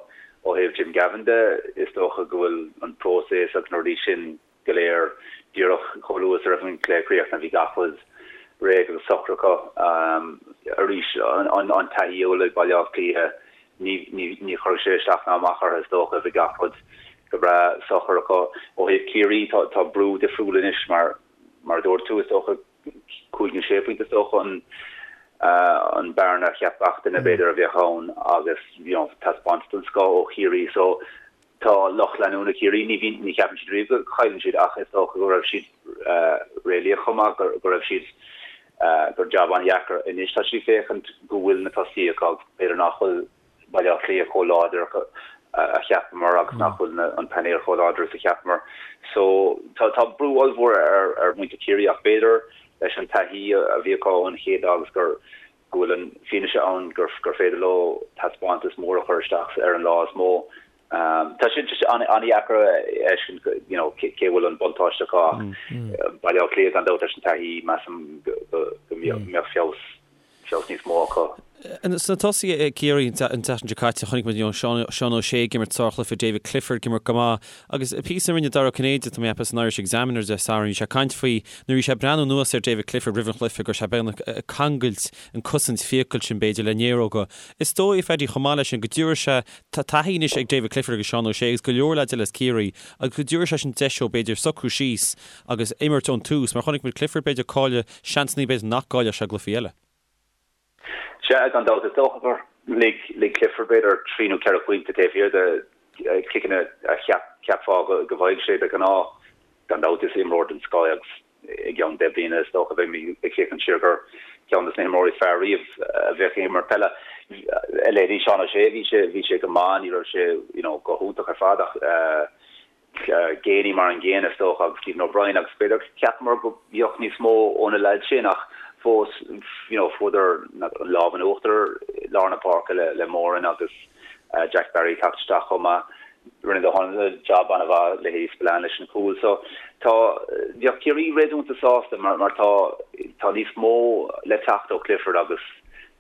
ó thaobh Jim Gavin de. Is dócha go bhfuil an próiseas agus na rudaí sin go léir díreach chomh luath is a raibh an cluiche críochnaithe bhí gach rud réidh agus socair acu. Arís an taithí a bhfuil ag Baile Átha Cliath ní ní chuirfidh sé isteach ná amach orthu is dócha bhí gach rud go breá socair acu. Ó thaobh Chiarraí tá tá brú difriúil anois mar Mar a dúirt tú, is dócha, 5 nó 6 phointe is dócha an an bearna a cheap gach duine b'fhéidir a bheadh ann agus you know taispeántas den scoth ó Chiarraí so tá lucht leanúna Chiarraí ní bhíonn ní cheapann siad riamh go chailleann siad ach is dócha go raibh siad réalaíoch chomh maith go go raibh siad gur jab an-dheacair anois tá siad ag féachaint go bhfuil na tosaithe acu b'fhéidir nach bhfuil Baile Átha Cliath chomh láidir a cheapamar agus nach bhfuil an painéal chomh láidir is a cheapamar. So tá tá brú ollmhór ar ar mhuintir Chiarraí ach b'fhéidir leis an taithí a bhí acu ón chéad lá agus gur go bhfuil an fianaise ann gur gur féidir leo taispeántas mór a chur isteach ar an lá is mó. Tá sé just an-dheacair a fheiscint you know cé bhfuil an buntáiste acu ach Baile Átha Cliath gan dabht leis an taithí measaim go go go mbeadh feabhas feabhas níos mó acu. Sna tosaithe ag Ciarraí an tseachtain seo caite, chonaic muid Seán O'Shea ag imirt sárchluiche, David Clifford ag imirt go maith agus píosa a rinne Dara Ó Cinnéide, tá mé ag ceapadh, san Irish Examiner Dé Sathairn, bhí sé ag caint faoi nuair a bhí sé ag breathnú anuas ar David Clifford roimh an chluiche go raibh sé beagnach ag cangailt an cosaint fiacail sin b'fhéidir le néaróga. Is dóigh, a Phaddy, chomh maith leis sin go dtabharfaidh sé, tá taithí anois ag David Clifford agus Seán O'Shea agus go leor leaids eile as Ciarraí agus go dtabharfaidh sé sin deis dóibh b'fhéidir socrú síos agus imirt ón tús mar chonaic muid Clifford b'fhéidir ag cailleadh seansanna b'fhéidir nach gcaillfeadh sé i gcluichí eile. Sea, gan dabht. Is dócha gur lig lig Clifford b'fhéidir 3 nó 4 phointe taobh thiar de chiceanna a cheap cheapfá go go bhfaigheadh sé de ghnáth. Gan dabht is imreoir den scoth é agus i gceann 10 bliana is dócha beimid ag féachaint siar gur ceann de na himreoirí is fearr riamh a bheadh ag imirt peile. A leithéidí Seán O'Shea bhí sé bhí sé go maith, ní raibh sé you know go hiontach ar fad ach eh, Geaney mar an gcéanna is dócha agus Stephen O'Brien agus b'fhéidir cheapamar go mbeadh níos mó ó na leaids sin ach fós you know fuaireadar an lámh in uachtar i lár na páirce le le Moran agus Jack Barry teacht isteach chomh maith. Rinne O'Donnell jab an-mhaith leithéidí Spillane leis an chúl so tá bheadh Ciarraí réasúnta sásta mar mar tá tá níos mó le teacht ó Clifford agus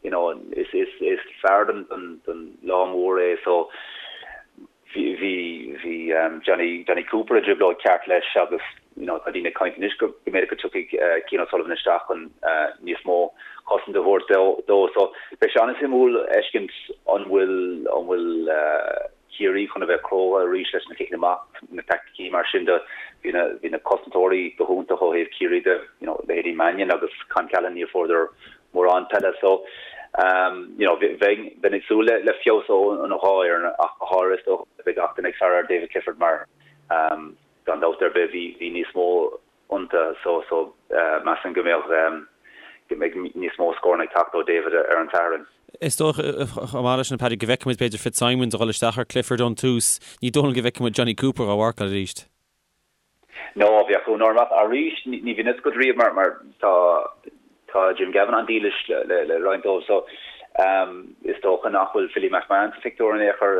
you know is is is fear don don don lá mór é so Bhí bhí Jonny Jonny Cooper i dtrioblóid ceart leis agus you know tá daoine ag caint anois go mb'fhéidir go dtiocfaidh Cian O'Sullivan isteach chun níos mó cosaint a thabhairt dó. So beidh sé an-suimiúil fheiscint an bhfuil an bhfuil Ciarraí chun a bheith cróga arís leis na ciceanna amach, na taicticí mar sin de. Bhí na bhí na cosantóirí go hiontach ó thaobh Ciarraí de, you know leithéidí Mannion agus Con Callahan níor fuaireadar mórán peile so you know bheinn bheinn ag súil le le feabhas ó an dhá fhoireann ach go háirithe is dócha beidh gach duine ag faire ar David Clifford mar gan dabht ar bith bhí bhí níos mó iontu so so measaim go mbeadh go mbeidh níos mó scóranna ag teacht ó David ar an Satharn. Is dócha chomh maith leis sin Paddy go bhfeicfidh muid b'fhéidir Fitzsimons a dhul isteach ar Clifford ón tús. Ní dóigh liom go bhfeicfidh muid Jonny Cooper á mharcáil arís. No, bheadh ionadh orm ach arís ní bhíonn fhios agat riamh mar mar tá tá Jim Gavin an-dílis le le le roinnt dóibh so is dócha nach bhfuil Philly McMahon sa phictiúr in aon chor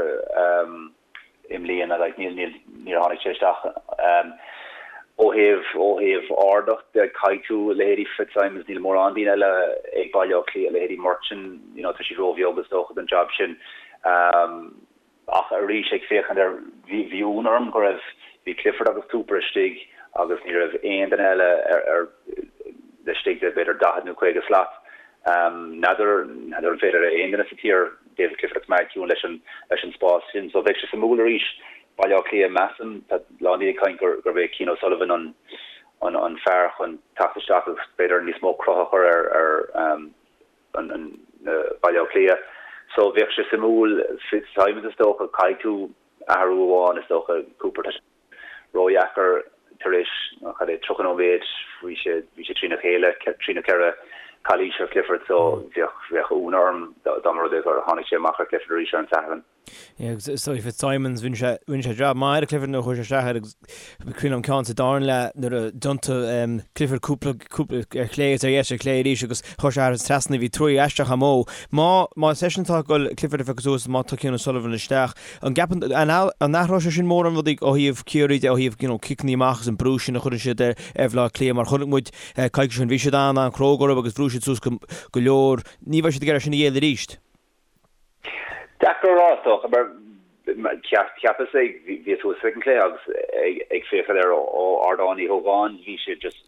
i mbliana like níl níl níor tháinig sé isteach ó thaobh ó thaobh ardacht de caithfidh tú leithéidí Fitzsimons níl mórán daoine eile ag Baile Átha Cliath leithéidí Murchan you know tá siad róbheag is dócha don job sin. Ach arís, ag féachaint ar, bhí, bhí ionadh orm go raibh, bhí Clifford agus Cooper istigh agus ní raibh aon duine eile ar, ar, laistigh de b'fhéidir 40 nó 50 slat. N'fheadar, n'fheadar an féidir le aon duine sa tír David Clifford a choimeád ciúin leis an, leis an spás sin. So bheadh sé suimiúil arís, Baile Átha Cliath, measaim, tá a lán daoine ag caint gur, gurb é Cian O'Sullivan an, an, an fear chun teacht isteach agus b'fhéidir níos mó cruth a chur ar, ar, an Baile Átha Cliath. So bheadh sé suimiúil Fitzsimons is dócha, caithfidh tú athrú amháin is dócha, Cooper tá sé ródheacair tar éis cad é 30 nóiméad bhí sé bhí sé trína chéile trí nó ceithre calaois ar Clifford so bheadh bheadh ionadh orm dá mba rud é gur tháinig sé amach ar Clifford arís ar an Satharn. Yeah, agus is dóigh Fitzsimons, rinne sé, rinne sé jab maith ar Clifford nuair a chuaigh sé isteach air agus cuimhin liom ceann sa darna leath nuair a d'iontaigh Clifford cúpla, cúpla ar chlé agus ar dheis ar chlé arís agus chuir sé thar an trasna, bhí troid aisteach amuigh. Má, má is eisean atá ag dul Clifford a phiocadh suas, má tá Cian O'Sullivan isteach, an gceapann, an, an athróidh sé sin mórán rudaí ó thaobh Ciarraí de, ó thaobh, you know, ciceanna amach agus an brú sin a chuireann siad ar, ar Bhaile Átha Cliath mar chonaic muid coicís ó shin, bhí siad an-an-chróga orthu agus bhrúigh siad suas go, go leor. Ní bheidh siad ag iarraidh sin a dhéanamh arís. Deacair a rá, is dócha, mar cheapas ag, bhíos thuas ag an cluiche agus ag féachaint air ó Ardán Uí Ógáin, bhí sé just,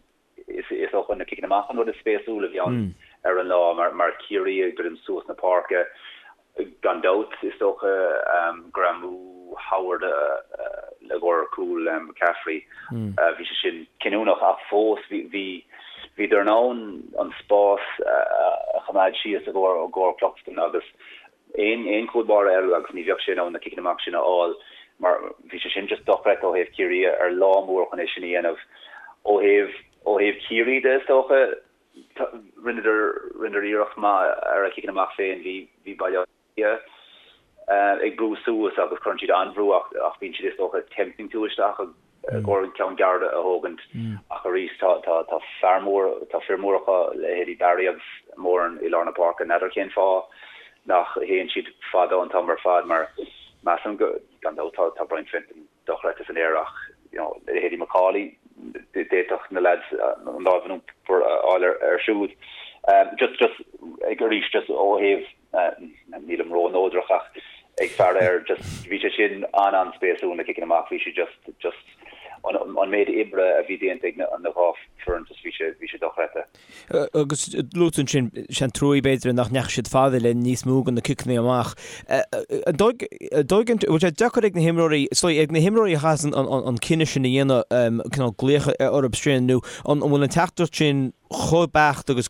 is dócha na ciceanna amach an rud is spéisiúla a bhí ann ar an lá mar Ciarraí ag druidim suas na páirce, gan dabht, is dócha, greamú Howard i gcomhair cúl McCaffrey, bhí sé sin cinniúnach ach fós bhí, Bhíodar in ann an spás a choimeád síos i gcomhair Cluxton agus aon chúl báire eile agus ní bheadh sé in ann na ciceanna amach sin a fháil mar bhí sé sin just dochreidte ó thaobh Ciarraí ar lá mór chun é sin a dhéanamh. Ó thaobh ó thaobh Ciarraí de is dócha rinneadar rinneadar iarracht maith ar a chiceanna amach féin. Bhí bhí Baile Átha Cliath ag brú suas agus cuireann siad an-bhrú ach bíonn siad is dócha tempting tú isteach i gcomhair an ceann gearr a thógaint ach arís tá tá tá fear mór tá fir móra acu leithéidí Barry agus Moran i lár na páirce. N'fheadar cén fáth nach théann siad fada an t-am ar fad mar measaim go gan dabht tá tá Brian Fenton dochreidte san aer ach you know leithéidí McAuley d'fhéadfadh na lads an lámh in uachtar a fháil air siúd. Just just ag arís just ó thaobh nílim ró-neodrach ach ag faire air just bhí sé sin an-an-spéisiúil na ciceanna amach bhí sé just just an méid oibre a bhí déanta ag na dhá foireann just bhí sé bhí sé dochreidte. Agus luaigh tú ansin, sé an trua b'fhéidir nach ndeachaigh siad fada le níos mó de na ciceanna amach. An dóigh an bhfuil sé deacair ag na himreoirí, is dóigh, ag na himreoirí a chaitheas an cinneadh sin a dhéanamh, cineál glaoch orthu sin nó an bhfuil an teachtaireacht sin chomh beacht agus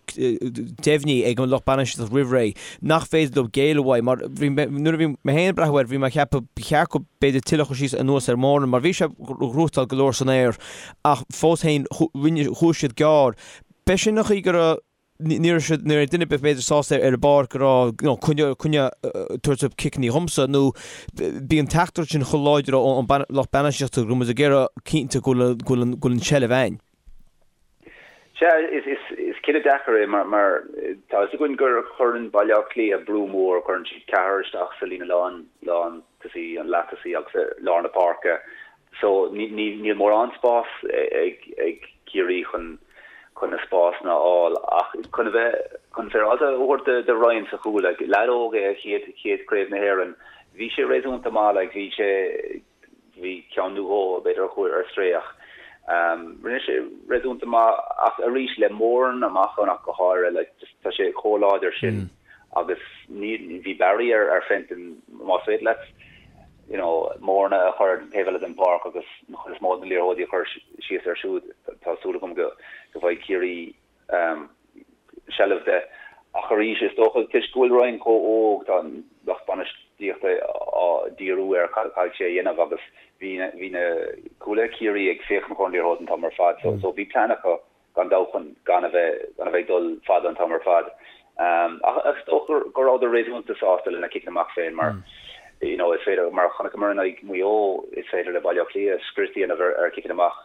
deimhnithe ag an lucht bainistíochta roimh ré nach féidir leo géilleadh uaidh mar bhí nuair a bhí mé féin ag breathnú air bhí mé ag ceapadh ba cheart go b'fhéidir tuilleadh a chur síos anuas ar Moran mar bhí sé ag gnóthachtáil go leor san aer ach fós féin rinne chuaigh siad gearr. B'é sin an chaoi go raibh ní raibh siad ní raibh duine ar bith b'fhéidir sásta ar an bpáirc go raibh you know coinne coinne tabhairt ciceanna dhomsa nó bhí an teachtaireacht sin chomh láidir ón lucht bainistíochta go raibh muid ag iarraidh cinnte go bhfuil go bhfuil go bhfuil an tseilbh againn. Sea, is cinneadh deacair é mar tá fhios againn gur chuireann Baile Átha Cliath brú mór, cuireann siad ceathrar isteach sa líne lán, lán tosaí, an leath tosaí agus i lár na páirce. So níl mórán spás ag Ciarraí chun chun na spásanna a fháil ach chun a bheith chun féaráilte a thabhairt do Ryan sa chúl, like, leaid óg é a chéad chéad Craobh na hÉireann, bhí sé réasúnta maith, like, bhí sé Bhí ceann nó dhó, b'fhéidir, a chuaigh ar strae ach rinne sé réasúnta maith ach arís le Moran amach ann ach go háirithe, like, just tá sé chomh láidir sin agus ní, bhí Barry ar, ar Fenton, más féidir leat, you know, Moran a chur ar an taobh eile den pháirc agus an chuid is mó de na liathróidí a chur síos air siúd, tá súil agam go, go bhfaighidh Ciarraí seilbh de. Ach arís, is dócha, toisc go bhfuil Ryan chomh óg, tá an lucht bainistíochta á díriú ar cad a chaithfidh sé a dhéanamh agus bhí bhí na cúlaithe Ciarraí ag féachaint chun an liathróid an t-am ar fad so so bhí plean acu gan dabht chun gan a bheith gan a bheith ag dul fada an t-am ar fad. Ach is dócha go rabhadar réasúnta sásta lena ciceanna amach féin mar you know is féidir mar a chonaiceamar in aghaidh Mhaigh Eo is féidir le Baile Átha Cliath scrios a dhéanamh ar ar chiceanna amach.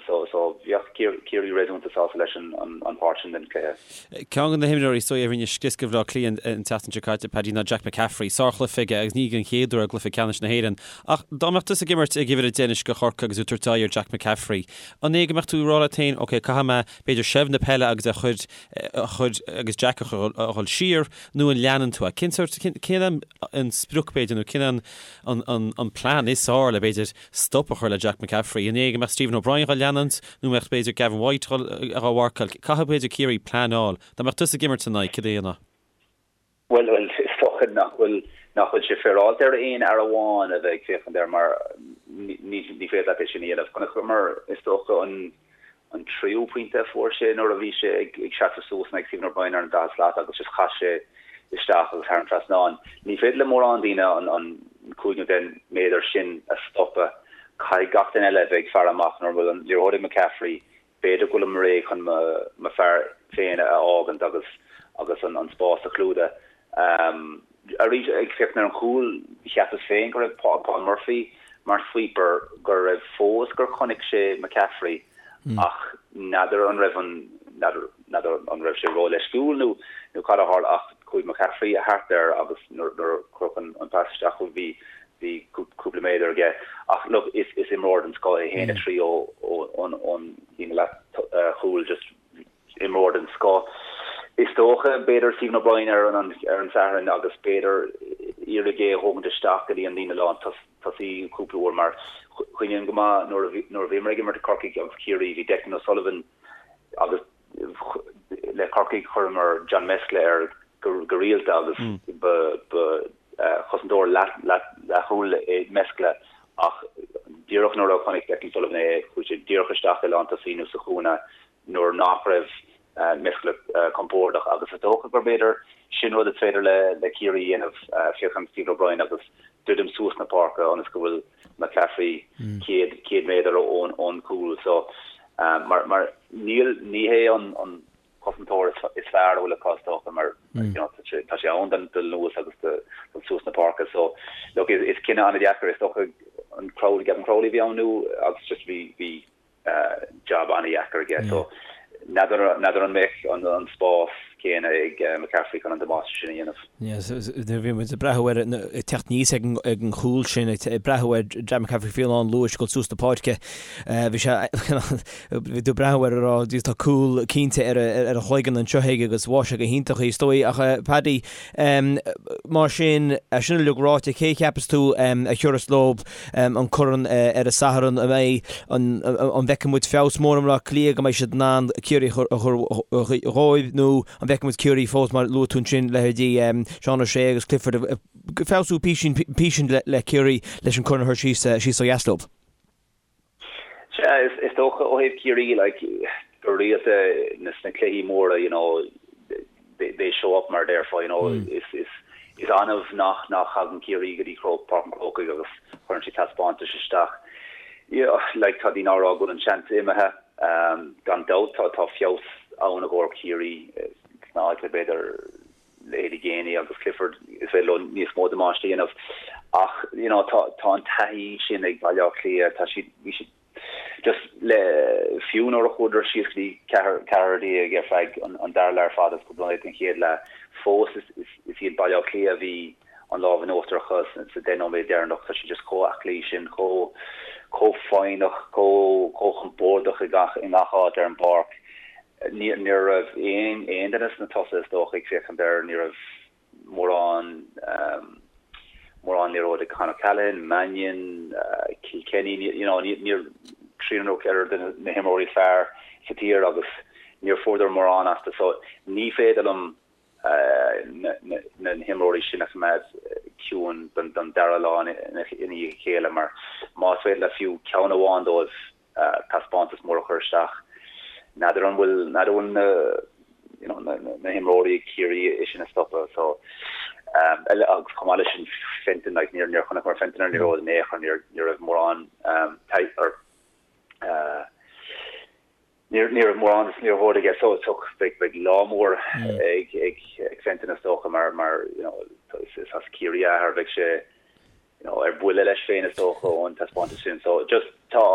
So so bheadh Ciarraí réasúnta sásta leis an pháirt sin den chluiche. Ceann de na himreoirí is dóigh a rinne scrios do Bhaile Átha Cliath an tseachtain seo caite, Paddy, ná Jack McCaffrey. Sárchluiche aige agus ní den chéad uair i gcluiche ceannais na hÉireann. Ach dá mbeadh tusa ag imirt ag uimhir a deich anois do Chorcaigh agus tú ag tabhairt aghaidh ar Jack McCaffrey, an é go mbeadh tú ag rá leat féin, ok, caithfidh mé b'fhéidir seilbh na peile agus a chur a chur agus Jack a chur a dhul siar nó an leanann tú é? Cén sórt, cén an sprioc b'fhéidir nó cén an an an plean is fearr le b'fhéidir stop a chur le Jack McCaffrey. An é go mbeadh Stephen O'Brien dhá leanúint nó mbeadh b'fhéidir Gavin White dhá mharcáil? Caithfidh b'fhéidir Ciarraí pleanáil. Dá mbeadh tusa ag imirt ina aghaidh, cad a dhéanfá? Bhuel, bhuel, is dócha nach bhfuil, nach bhfuil sé féaráilte ar aon fhear amháin a bheith ag féachaint air mar ní, ní féidir leat é sin a dhéanamh. Chonaiceamar, is dócha, an, an tríú pointe a fuair sé nuair a bhí sé ag seasamh suas in aghaidh Stephen O'Brien ar an daichead slat agus just chaith sé isteach agus thar an trasnán. Ní féidir le mórán daoine an 5 nó 10 méadar sin a stopadh. Caithfidh gach duine eile a bheith ag faire amach nuair a bhfuil an liathróid ag McCaffrey. B'fhéidir go bhfuilim réidh chun mo fear féin a fhágaint agus agus an spás a chlúdach. Arís, ag féachaint ar an chúl, cheapas féin go raibh Paul Murphy mar sweeper, go raibh fós gur chonaic sé McCaffrey ach n'fheadar an raibh an, n'fheadar, n'fheadar an raibh sé ró-leisciúil nó, nó cad a tharla ach chuaigh McCaffrey thart air agus nuair, nuair a cuireadh an, an pas isteach bhí, bhí cúpla méadar aige. Ach look, is, is imreoir den scoth é, 1-3 ó, ó, ón, ón líne leath chúil just imreoir den scoth. Is dócha, b'fhéidir, Stephen O'Brien ar an ar an Satharn agus b'fhéidir iarraidh é a thógaint isteach go dtí an líne lán tosaí cúpla uair mar cuimhním go maith nuair a bhí nuair a bhíomar ag imirt Corcaigh agus Ciarraí bhí Declan O'Sullivan agus le Corcaigh chuireamar John Mescla air go go rialta agus ba ba chosantóir leath leath leathchúil é Mescla ach díreach nuair a chonaic Declan Sullivan é chuaigh sé díreach isteach i lántosaí nó sa chúinne nuair nach raibh Mescla compordach agus is dócha gur b'fhéidir sin rud is féidir le Ciarraí a dhéanamh, féachaint Stephen O'Brien agus druidim suas na páirce ionas go bhfuil McCaffrey 100 100 méadar ón ón gcúl so mar mar níl ní hé an an cosantóir is fearr a bhfuil acu is dócha mar you know tá sé tá sé ann don dul anuas agus do dul suas na páirce so look is is cinneadh an-deacair is dócha an Crowley Gavin Crowley a bhí ann nó agus just bhí bhí jab an-dheacair aige so n'fheadar an mbeadh an spás céanna ag McCaffrey chun an damáiste sin a dhéanamh. Yes, nuair a bhí muid ag breathnú air ag teacht aníos ag an chúl sin, ag breathnú ar Jack McCaffrey faoi lán luais ag dul suas na páirce, bhí sé, bhí tú ag breathnú air ag rá tá cúl cinnte ar a chloigeann anseo aige agus bháigh sé go hiontach í, is dóigh. Ach Paddy, mar sin, é sin uilig ráite, cé a cheapas tú a thiúrfas leo an corn ar an Satharn, an mbeidh an an bhfeicfidh muid feabhas mór i mBleá Cliath go mbeidh siad in ann Ciarraí a chur dhóibh nó an bhfeicfidh muid Ciarraí fós mar luaigh tú ansin leithéidí Seán O'Shea agus Clifford ag feabhsú písín písín le Ciarraí leis an corn a chur síos síos ó dheas leo. Sea, is dócha ó thaobh Ciarraí, like, go rialta sna cluichí móra, you know, they show up mar a déarfá, you know, is, is, is annamh nach, nach thagann Ciarraí go dtí Páirc an Chrócaigh agus cuireann siad taispeántais isteach. You know, like, tá daoine á rá go bhfuil an seans imithe, gan dabht tá, tá feabhas ann i gcomhair Ciarraí sna áiteanna b'fhéidir leithéidí Geaney agus Clifford, is féidir leo níos mó damáiste a dhéanamh ach you know tá tá an taithí sin ag Baile Átha Cliath, tá siad, bhí siad just le, fiú nuair a chuadar síos go dtí 14 ar feadh an an dara leath ar fad agus cúpla nóiméad den chéad leath, fós is is is iad Baile Átha Cliath a bhí an lámh in uachtar acu sa 10 nóiméad deireanach, tá siad just chomh aclaí sin, chomh chomh foighneach, chomh chomh compordach i gach i ngach áit ar an bpáirc. Ní raibh aon duine sna tosaithe is dócha ag féachaint air, ní raibh mórán mórán liathróid ag Con O'Callaghan, Mannion, Kilkenny, you know, níor triúr nó ceathrar de na himreoirí is fearr sa tír agus níor fuaireadar mórán astu so ní féidir liom na himreoirí sin a choimeád ciúin don dara lá ina dhiaidh a chéile mar más féidir le fiú ceann amháin dóibh taispeántas mór a chur isteach. N'fheadar an bhfuil, n'fheadar an bhfuil na, you know, na, na, na himreoirí ag Ciarraí é sin a stopadh. So, um, agus chomh maith leis sin Fenton, like, níor, níor chonaiceamar Fenton ar an liathróid in aon chor, níor, ní raibh mórán, um, or, uh, níor, ní raibh mórán de liathróid aige. So, so beidh, beidh lá mór ag, ag, ag Fenton is dócha mar, mar, you know, is, is as Ciarraí a athair, beidh sé, you know, ar buile leis féin is dócha ón taispeántas sin. So just tá,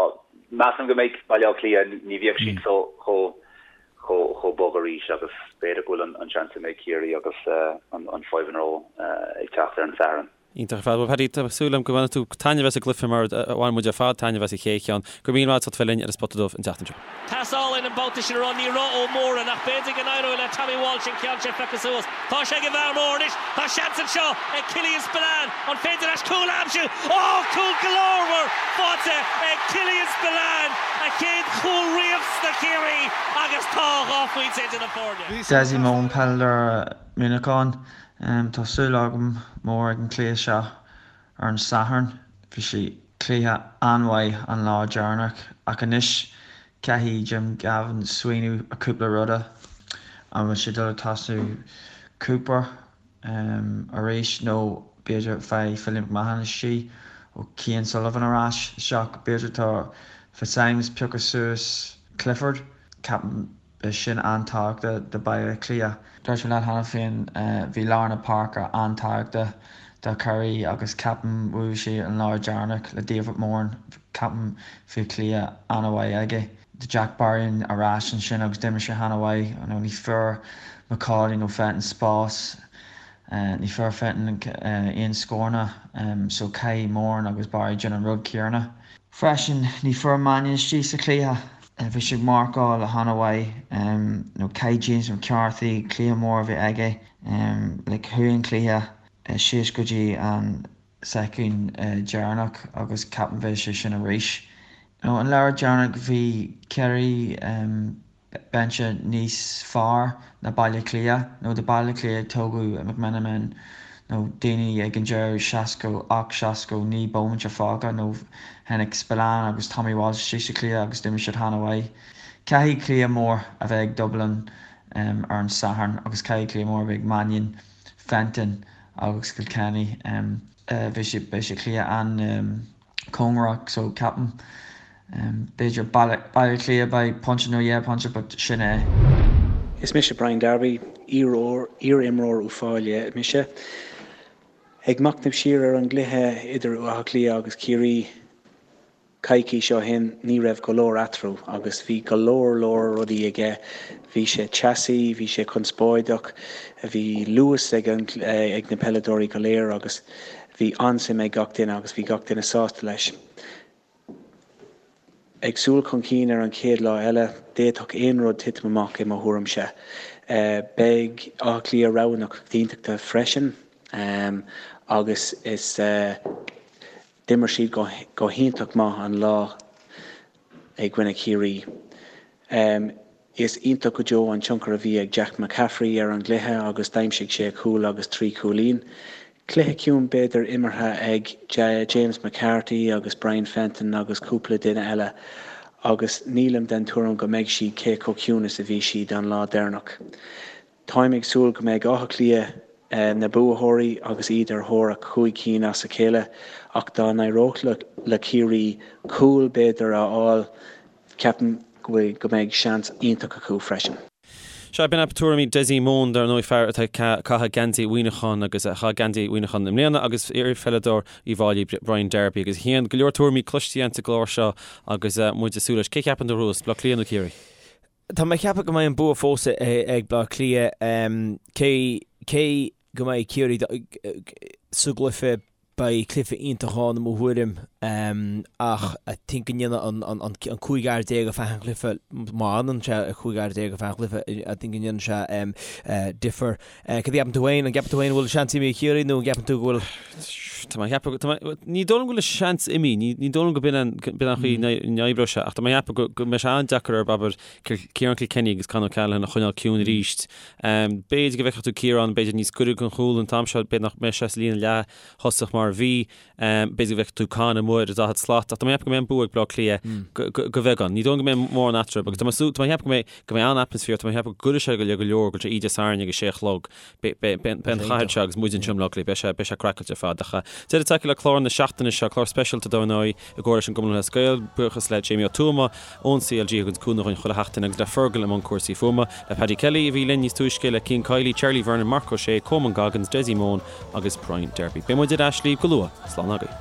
measaim go mbeidh Baile Átha Cliath, ní bheidh siad so chomh chomh chomh bog arís agus b'fhéidir go bhfuil an an seans imithe ag Ciarraí agus an an 5 in a row ag teacht ar an Satharn. Iontach ar fad. Bhuel Paddy, tá súil agam go mbainfidh tú taitneamh as an gcluiche mar a bhain muid ar fad taitneamh as an chéad cheann. Go raibh míle maith agat as ucht a bheith linn ar an Spota Dubh an tseachtain seo. Pas álainn an babhta sin a raibh ní raibh Ó Mórdha ach b'fhéidir go n-éireoidh le Tommy Walsh an ceann sin a phiocadh suas. Tá sé ag an bhfear mór anois. Tá seans anseo ag Killian Spillane. An féidir leis cúl a aimsiú? Ó! Cúl glórmhar faighte ag Killian Spillane! A chéad chúl riamh sna Ciarraí agus tá 2 phointe idir na foirne. Dessie Mone, peileadóir Muineacháin. Tá súil agam mór ag an cluiche seo ar an Satharn. Bhí sé cluiche an-mhaith an lá deireanach ach anois caithfidh Jim Gavin smaoineamh ar cúpla ruda. An bhfuil sé dul ag tosú Cooper arís nó b'fhéidir faigh Philly McMahon istigh ó Cian Sullivan ar ais isteach. B'fhéidir tá Fitzsimons piocadh suas Clifford. Ceapaim. Beidh sin an-tábhachtach do Baile Átha Cliath. Dúirt mé leat cheana féin, bhí lár na páirce an-tábhachtach do Chiarraí agus ceapaim bhuaigh siad an lá deireanach le David Moran, ceapaim bhí cluiche an-mhaith aige. Tá Jack Barry ar ais ansin agus d'imir sé an-mhaith. Ní fuair McAuley nó Fenton spás, ní fuair Fenton aon scóranna so caithfidh Moran agus Barry déanamh an rud céanna. Freisin, ní fuair Mannion istigh sa chluiche. Bhí sé ag marcáil an-mhaith. Nó caithfidh James McCarthy cluiche mór a bheith aige. Like chuaigh an cluiche síos go dtí an soicind deireanach agus ceapaim bheidh sé sin arís. Nó an lá deireanach bhí Ciarraí binse níos fearr ná Baile Átha Cliath, nó tá Baile Átha Cliath ag tógadh McMenamin nó daoine ag an deireadh 68, 69 bomaite fágtha nó tháinig Spillane agus Tommy Walsh istigh sa chluiche agus d'imir siad an-mhaith. Caithfidh cluiche mór a bheith ag Dublin ar an Satharn agus caithfidh cluiche mór a bheith ag Mannion, Fenton agus Kilkenny. Beidh sé beidh sé cluiche an. cóngarach so ceapaim b'fhéidir Baile Átha Cliath by pointe nó dhá phointe but sin é. Is mise Brian Darby, iar-imreoir Uíbh Fhailí mise. Ag machnamh siar ar an gcluiche idir Áth Cliath agus Ciarraí coicís ó shin, ní raibh go leor eatarthu agus bhí go leor leor rudaí aige. Bhí sé teasaí, bhí sé conspóideach, bhí luas ag na peileadóirí go léir agus Bhí an-suim ag gach duine agus bhí gach duine sásta leis. Ag súil chun cinn ar an chéad lá eile, d'fhéadfadh aon rud titim amach i mo thuairimse. Beidh Áth Cliath rogha na coitiantachta freisin agus is d'imir siad go hiontach maith an lá i gcoinne Chiarraí. Is iontach go deo an tionchar a bhí ag Jack McCaffrey ar an gcluiche agus d'aimsigh sé cúl agus 3 chúilín. Cluiche ciúin b'fhéidir imeartha ag James McCarthy agus Brian Fenton agus cúpla duine eile agus nílim den tuairim go mbeidh siad cé chomh ciúin is a bhí siad an lá deireanach. Táim ag súil go mbeidh Áth Cliath na buaitheoirí agus iad ar thóir a chúig cinn as a chéile ach dá n-éireodh le Ciarraí cúl b'fhéidir a fháil, ceapaim go mbeidh seans iontach acu freisin. Sea, b'in tuairimí Dessie Mone, dar ndóigh, fear atá ag caitheamh geansaí Mhuineacháin agus a chaith geansaí Mhuineacháin i mbliana agus iarpheileadóir Uíbh Fhailí, Brian Darby. Agus a Chian, go leor tuairimí cloiste againn sa gclár seo agus muid ag súil leis. Cé cheapann tú a bhuafas, Bleá Cliath nó Ciarraí? Tá mé ag ceapadh go mbeidh an bua fós ag Bleá Cliath, cé cé go mbeidh Ciarraí sa gcluiche, beidh cluiche iontach ann i mo thuairim ach I think go ndéanfaidh an an 15 fhear ar feadh an chluiche, má fhanann sé 15 fhear ar feadh an chluiche, I think go ndéanann sé difear. Cad a cheapann tú féin? An gceapann tú féin go bhfuil seans imithe ag Ciarraí nó an gceapann tú go bhfuil. Tá mé ag ceapadh, tá mé, ní dóigh liom go bhfuil seans imithe, ní, ní dóigh liom go b'in an, b'in an chaoi a n-oibreoidh sé, ach tá mé ag ceapadh go, go mbeidh sé an-deacair ar, abair, Ciarán Kilkenny agus Con O'Callaghan a choinneáil ciúin arís. B'fhéidir go bhfeicfeadh tú Ciarán, b'fhéidir níos gaire don chúl an t-am seo, b'fhéidir nach mbeidh sé sa líne leath-thosach mar a bhí. B'fhéidir go bhfeicfeadh tú Con amuigh ar an 40 slat, ach tá mé ag ceapadh go mbeidh an bua ag Bleá Cliath go bheagán. Ní dóigh liom go mbeidh mórán eatarthu agus tá mé tá mé ag ceapadh go mbeidh go mbeidh an-atmaisféar, tá mé ag ceapadh go gcuirfidh sé go le go leor go dtí Dé Sathairn ag a sé a chlog. Beidh an chathair seo agus muid anseo i mBleá Cliath, beidh sé beidh sé craiceáilte ar fad. Ach deireadh tagtha le clár na seachtaine seo, clár speisialta dar ndóigh i gcomhar leis an gCumann Lúthchleas Gael. Buíochas le Jamie Ó Tuama ón CLG a thugann cúnamh dhúinn chuile sheachtain agus le Fergal i mbun cúrsaí fuaime, le Paddy Kelly a bhí linn níos túisce, le Cian Kiely, Charlie Vernon, Marc Ó Sé, Coman Goggins, Dessie Mone, agus Brian Darby. Beidh muid ar ais libh go luath. Slán agaibh.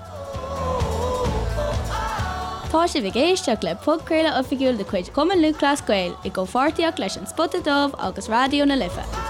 Tá sibh ag éisteacht le podchraoladh oifigiúil de chuid Chumann Lúthchleas Gael i gcomhpháirtíocht leis An Spota Dubh agus Raidió na Life.